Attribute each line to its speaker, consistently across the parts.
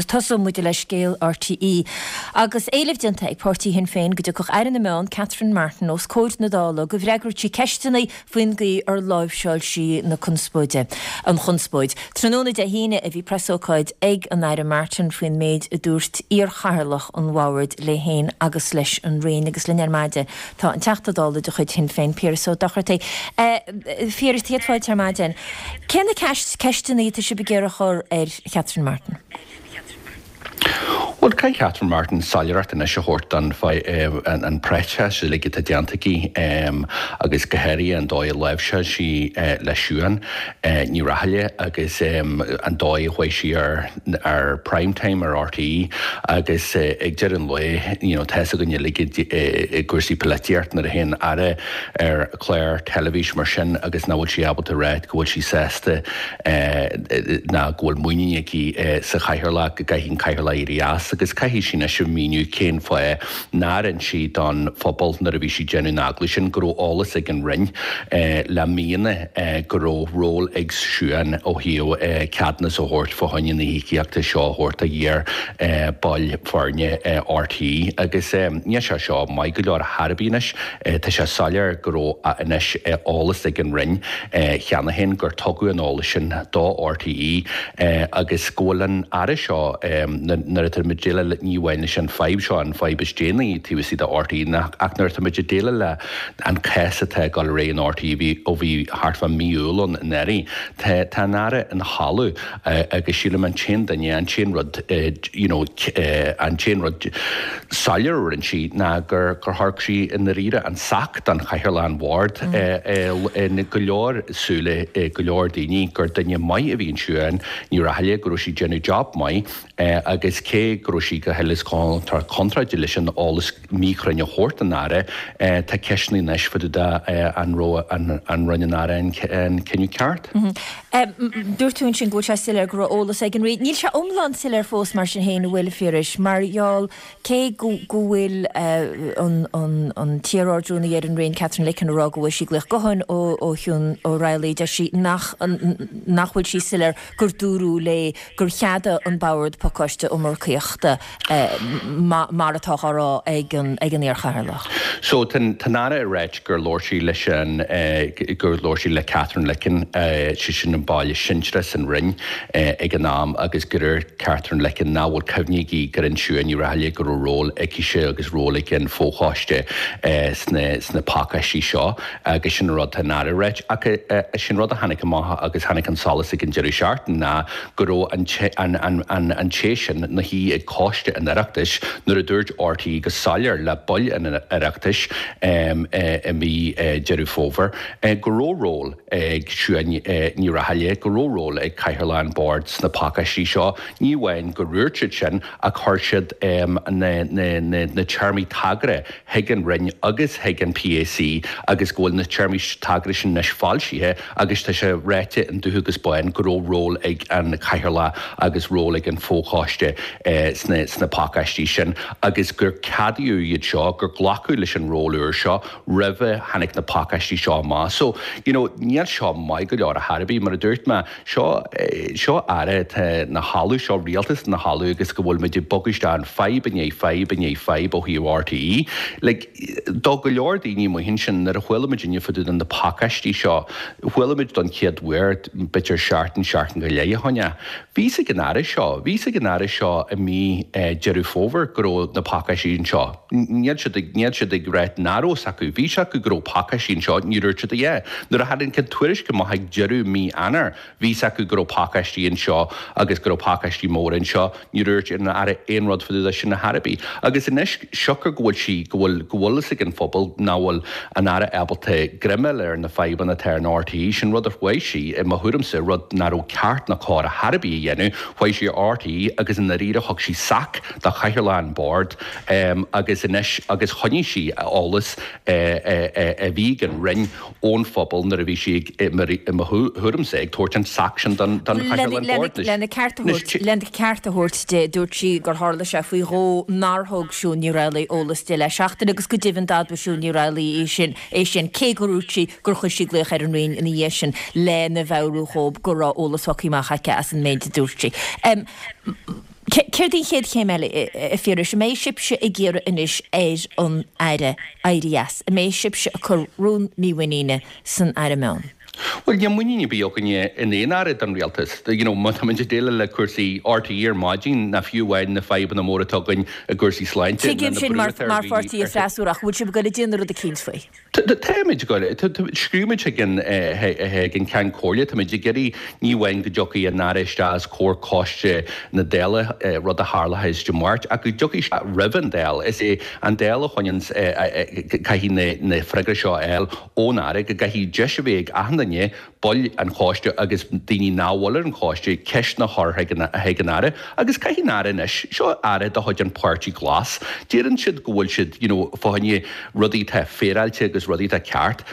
Speaker 1: tosóidh muid le scéal RTÉ. Agus éileamh déanta ag páirtí Shinn Féin go dtiocfadh Aire na Meán, Catherine Martin, os comhair na Dála go bhfreagródh sí ceisteanna faoin gcaoi ar láimhseáil sí na conspóide, an chonspóid. Tráthnóna Dé hAoine a bhí preasócáid ag an Aire Martin faoin méid a dúirt iarchathaoirleach an bhoird léi féin agus leis an Roinn agus linn ar maidin tá an Teachta Dála de chuid Shinn Féin, Piaras Ó Dochartaigh. Phiarais, céad fáilte ar maidin. Cé na ceisteanna atá sibh ag iarraidh a chur ar Chatherine Martin?
Speaker 2: Bhuel, caithfidh Catherine Martin soiléireacht anois a thabhairt don an próiseas uilig atá déanta aici agus go háirithe an dóigh a láimhseáil sí le Siún Ní Raghallaigh agus an dóigh a chuaigh sí ar ar Prime Time ar RTÉ agus ag deireadh an lae you know tá fhios againn uilig i gcúrsaí polaitíochta nuair a théann Aire ar chlár teilifíse mar sin agus nach bhfuil sí ábalta a rá go bhfuil sí sásta ná go bhfuil muinín aici sa chathaoirleach, go gcaithfidh an cathaoirleach éirí as agus caithfidh sí anois a mhíniú cén fáth nár inis sí don phobal nuair a bhí sí ag déanamh an agallaimh sin go raibh eolas ag an Roinn le míonna go raibh ról ag Siún ó thaobh ceadúnas a thabhairt fá choinne na híocaíochta seo a thabhairt do iar baill foirne RTÉ agus níl sé seo maith go leor ar chor ar bith anois. Tá sé soiléir go raibh anois eolas ag an Roinn cheana féin gur tugadh an eolas sin do RTÉ agus go bhfuil an Aire seo, nuair atá muid ag déileáil ní amháin leis an fadhb seo, an fadhb is déanaí taobh istigh de RTÉ, ach nuair atá muid ag déileáil le an cás atá ag dul ar aghaidh in RTÉ ó bhí thart fá mí Iúil ann anuraidh, tá an Aire ina chodladh agus sílim an t-aon duine, an t-aon rud, you know, an t-aon rud soiléir a rinne sí ná gur thug sí i ndáiríre an sac don chathaoirleach an bhoird i go leor súile go leor daoine gur duine maith a bhí in Siún Ní Raghallaigh, go raibh sí ag déanamh job maith agus cé go raibh sí go huile is go contráilte leis an eolas míchruinn a thabhairt don Aire, tá ceisteanna anois fá dtaobh de an raibh an rinne an Aire an cinneadh
Speaker 1: ceart. Dúirt tú ansin go bhfuil sé soiléir go raibh eolas ag an Roinn. Níl sé iomlán soiléir fós mar sin féin, an bhfuil, a Phiarais? Mar gheall, cé go bhfuil an t-iar-Ardrúnaí ar an Roinn, Catherine Licken, ag rá go bhfuair sí glaoch gutháin ó Shiún Ó Raghallaigh, deir sí nach nach bhfuil sí soiléir gur dúradh léi gur cheadaigh an Bord pacáiste iomarcaíochta mar atá á rá ag an iar-chathaoirleach.
Speaker 2: So, tá an Aire ag ráit gur labhair sí leis an, gur labhair sí le Catherine Licken, sé sin an ball is sinsearaí san Roinn ag an am agus gur dúirt Catherine Licken nach bhfuil cuimhne aici gur inis Siún Ní Raghallaigh go raibh ról aicise agus ról ag an fho-choiste sna, sna pacáistí seo agus sin an rud tá an Aire ag ráit. Ach sin rud a tháinig amach agus tháinig an solas ag an deireadh seachtaine ná go raibh an té sin ina shuí ag Coiste an Oireachtais nuair a dúirt RTÉ go soiléir le baill an Oireachtais i mí Deireadh Fómhair go raibh ról ag Siún Ní Raghallaigh, go raibh ról ag Cathaoirleach an Bhoird sna pacáistí seo. Ní amháin gur dhúirt siad sin ach chuir siad na téarmaí tagartha chuig an Roinn agus chuig an PAC agus go bhfuil na téarmaí tagartha sin anois foilsithe agus tá sé ráite in dubh agus bán go raibh ról ag an Chathaoirleach agus ról ag an bhfochoiste sna sna pacáistí sin agus gur ceadaíodh iad seo, gur glacadh leis an ról úr seo roimhe tháinig na pacáistí seo amach. So, you know, níl seo maith go leor ar chor ar bith, mar a dúirt mé, Seo, seo Aire atá ina chodladh, seo rialtas ina chodladh agus go bhfuil muid ag bogadh isteach in fadhb i ndiaidh fadhb i ndiaidh fadhb ó thaobh RTÉ. Like, do go leor daoine amuigh ansin, nuair a chuala muid inniu fá dtaobh de na pacáistí seo, chuala muid don chéad uair b'fhéidir seachtain, seachtain go leith ó shin. Bhí fhios ag an Aire seo, bhí fhios ag an Aire seo i mí Deireadh Fómhair go raibh na pacáistí anseo. Níl siad ag, níl siad ag ráit nach raibh fhios acu. Bhí fhios acu go raibh pacáistí anseo, ní dúirt siad a dhath. Nuair a tháinig an tuairisc amach ag deireadh mí Eanáir, bhí fhios acu go raibh pacáistí anseo agus go raibh pacáistí móra anseo. Ní dúirt an Aire aon rud fá dtaobh de sin ar chor ar bith. Agus anois, siocair go bhfuil sí, go bhfuil, go bhfuil fhios ag an phobal nach bhfuil an Aire ábalta greim a fháil ar na fadhbanna atá in RTÉ, sin rud a chuaigh sí, i mo thuairimse, rud nach raibh ceart ná cóir ar chor ar bith a dhéanamh, chuaigh sí ar RTÉ agus i ndáiríre thug sí sac do chathaoirleach an bhoird agus anois, agus choinnigh sí eolas a bhí ag an Roinn ón phobal nuair a bhí sí ag, i mo thuairimse, ag tabhairt an sac sin don chathaoirleach an bhoird.
Speaker 1: Lena ceart a thabhairt, lena ceart a thabhairt di, dúirt sí gur tharla sé faoi dhó nár thug Siún Ní Raghallaigh eolas di le seachtain agus go deimhin d'admhaigh Siún Ní Raghallaigh é sin, é sin, cé gur dhúirt sí gur chuir sí glaoch ar an Roinn ina dhiaidh sin lena mheabhrú dhóibh go raibh eolas faighte amach aici as an méid a dúirt sí. Céard í an chéad chéim eile, a Phiarais? An mbeidh sibhse ag iarraidh anois ar an Aire éirí as? An mbeidh sibhse ag cur rún mímhuiníne san Aire Meán?
Speaker 2: Bhuel, níl muinín ar bith againne in aon Aire den Rialtas. You know, má táimid ag déileáil le cúrsaí RTÉ ar maidin, ná fiú amháin na fadhbanna móra atá againn i gcúrsaí sláinte,
Speaker 1: ná
Speaker 2: na
Speaker 1: Tuigim sin
Speaker 2: brú
Speaker 1: mar
Speaker 2: atá ar
Speaker 1: mar pháirtí
Speaker 2: dhaoine ar
Speaker 1: freasúra ach bhfuil sibh ag dul ag déanamh rud eicínt faoi?
Speaker 2: Táimid ag dul, scríobh muid chuig an chuig an Ceann Comhairle, táimid ag iarraidh ní amháin go dtiocfaidh an Aire isteach os comhair coiste na Dála, rud a tharlóidh Dé Máirt, ach go dtiocfaidh sé roimh an Dáil. Is é an Dáil a choinníonn, caithfidh na freagraí seo a fháil ón Aire, go gcaithfidh deis a bheith ag achan duine baill an choiste agus daoine nach bhfuil ar an choiste ceisteanna a chur chuig an Aire agus caithfidh an Aire anois, seo Aire de chuid an Páirtí Glas, deireann siad go bhfuil siad you know fá choinne rudaí atá féaráilte agus rudaí atá ceart.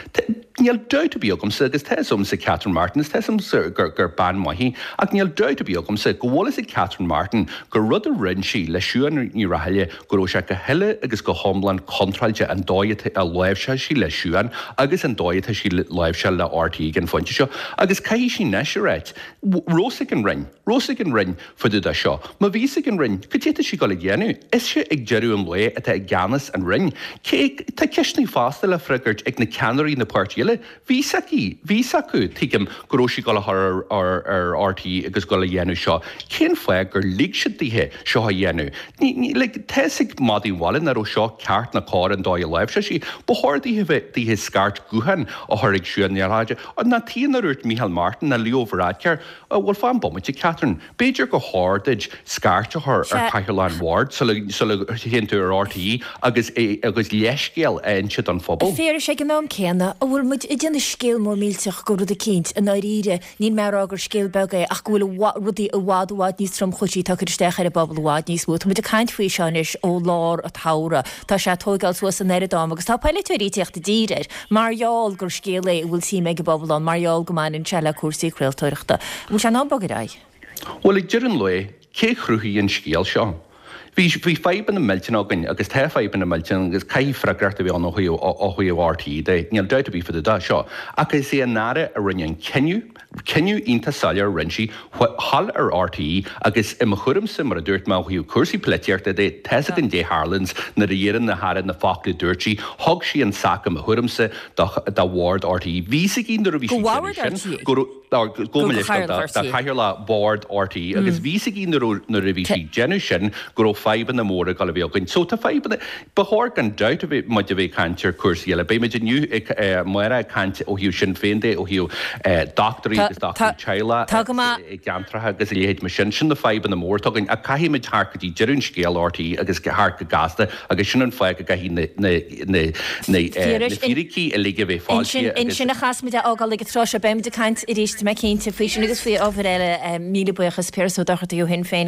Speaker 2: Níl dabht ar bith agamsa agus tá fhios agamsa Catherine Martin is tá fhios agamsa gur gur bean maith í ach níl dabht ar bith agamsa go bhfuil fhios ag Catherine Martin gur rud a rinne sí le Siún Ní Raghallaigh go raibh sé go huile agus go hiomlán contráilte an dóigh a láimhseáil sí le Siún agus an dóigh atá sí láimhseáil le RTÉ ag an phointe seo. Agus caithfidh sí anois a ráit, raibh fhios ag an Roinn, raibh fhios ag an Roinn fá dtaobh de seo. Má bhí fhios ag an Roinn, cad é atá sí ag dul a dhéanamh? Ise ag deireadh an lae atá i gceannas an Roinn. Cé, tá ceisteanna fosta le freagairt ag na ceannairí na páirtí eile. Bhí fhios aici, bhí fhios acu, tuigim, go raibh sí ag dul a chur ar ar RTÉ agus dul a dhéanamh seo. Cén fáth gur lig siad daoithe seo a dhéanamh? Ní, ní, like, tá fhios ag madaí an bhaile nach raibh seo ceart ná cóir an dóigh a láimhseáil sí. Ba chóir daoithe bheith, daoithe scairt gutháin a chur ag Siún Ní Raghallaigh. Ná tuige nár dhúirt Micheál Martin ná Leo Varadkar, Bhuel, fan bomaite, Catherine. B'fhéidir gur chóir duit scairt a chur ar Chathaoirleach an Bhoird sula théann tú ar RTÉ agus agus leithscéal a inse don phobal.
Speaker 1: A Phiarais, ag an am céanna, an bhfuil muid ag déanamh scéal mór millteach de rud eicínt, i ndáiríre, níl mé ag rá gur scéal beag é ach go bhfuil rudaí i bhfad i bhfad níos tromchúisí atá ag cur isteach ar an bpobal i bhfad níos mó. Tá muid ag caint faoi seo anois ó lár an tsamhraidh. Tá sé ag tóigeáil suas an oiread am agus tá polaiteoirí ag tíocht i dtír air mar gheall gur scéal é a bhfuil suim ag an bpobal ann, mar gheall go mbaineann sé le cúrsaí craoltóireachta. An bhfuil sé in am bogadh ar aghaidh?
Speaker 2: Bhuel, ag deireadh an lae, cé chruthaigh an scéal seo? Bhí, bhí fadhbanna millteanacha againn agus tá fadhbanna millteanacha agus caithfidh freagracht a bheith ann ó thaobh, ó thaobh RTÉ de, níl dabht ar bith fá dtaobh de seo. Ach is é an Aire a rinne an cinneadh, cinneadh iontach soiléir a rinne sí, thall ar RTÉ agus i mo thuairimse, mar a dúirt mé ó thaobh cúrsaí polaitíochta de, tá's againn caidé tharlaíonns nuair a dheireann na hAire na focla a dúirt sí, thug sí an sac i mo thuairimse do, do bhord RTÉ. Bhí 's aici nuair a bhí
Speaker 1: Do
Speaker 2: sí ag
Speaker 1: bhord
Speaker 2: déanamh sin
Speaker 1: RTÉ?
Speaker 2: go raibh, Gabh mo leithscéal do chathaoirleach bhord RTÉ agus bhí 's aici nuair a bhí sí ag déanamh sin go raibh fadhbanna móra ag dul a bheith againn. So tá fadhbanna, ba chóir gan dabht a bheith muid a bheith ag caint ar cúrsaí eile. Beidh muid inniu ag, amárach ag caint ó thaobh Sinn Féin de, ó thaobh dochtúirí agus dochtúirí teaghlaigh i gceantracha agus a leithéid mar sin. Sin na fadhbanna móra atá againn ach caithfidh muid theacht go dtí deireadh an scéil RTÉ agus theacht go gasta agus sin an fáth go gcaithfidh na na fíricí uilig a bheith foilsithe
Speaker 1: agus. Ansin a chaithfeas muid é a fhágáil ag an tráth seo. Beidh muid ag caint arís, tá mé cinnte, faoi sin agus faoi ábhair eile. Míle buíochas, Piaras Ó Dochartaigh ó Shinn Féin.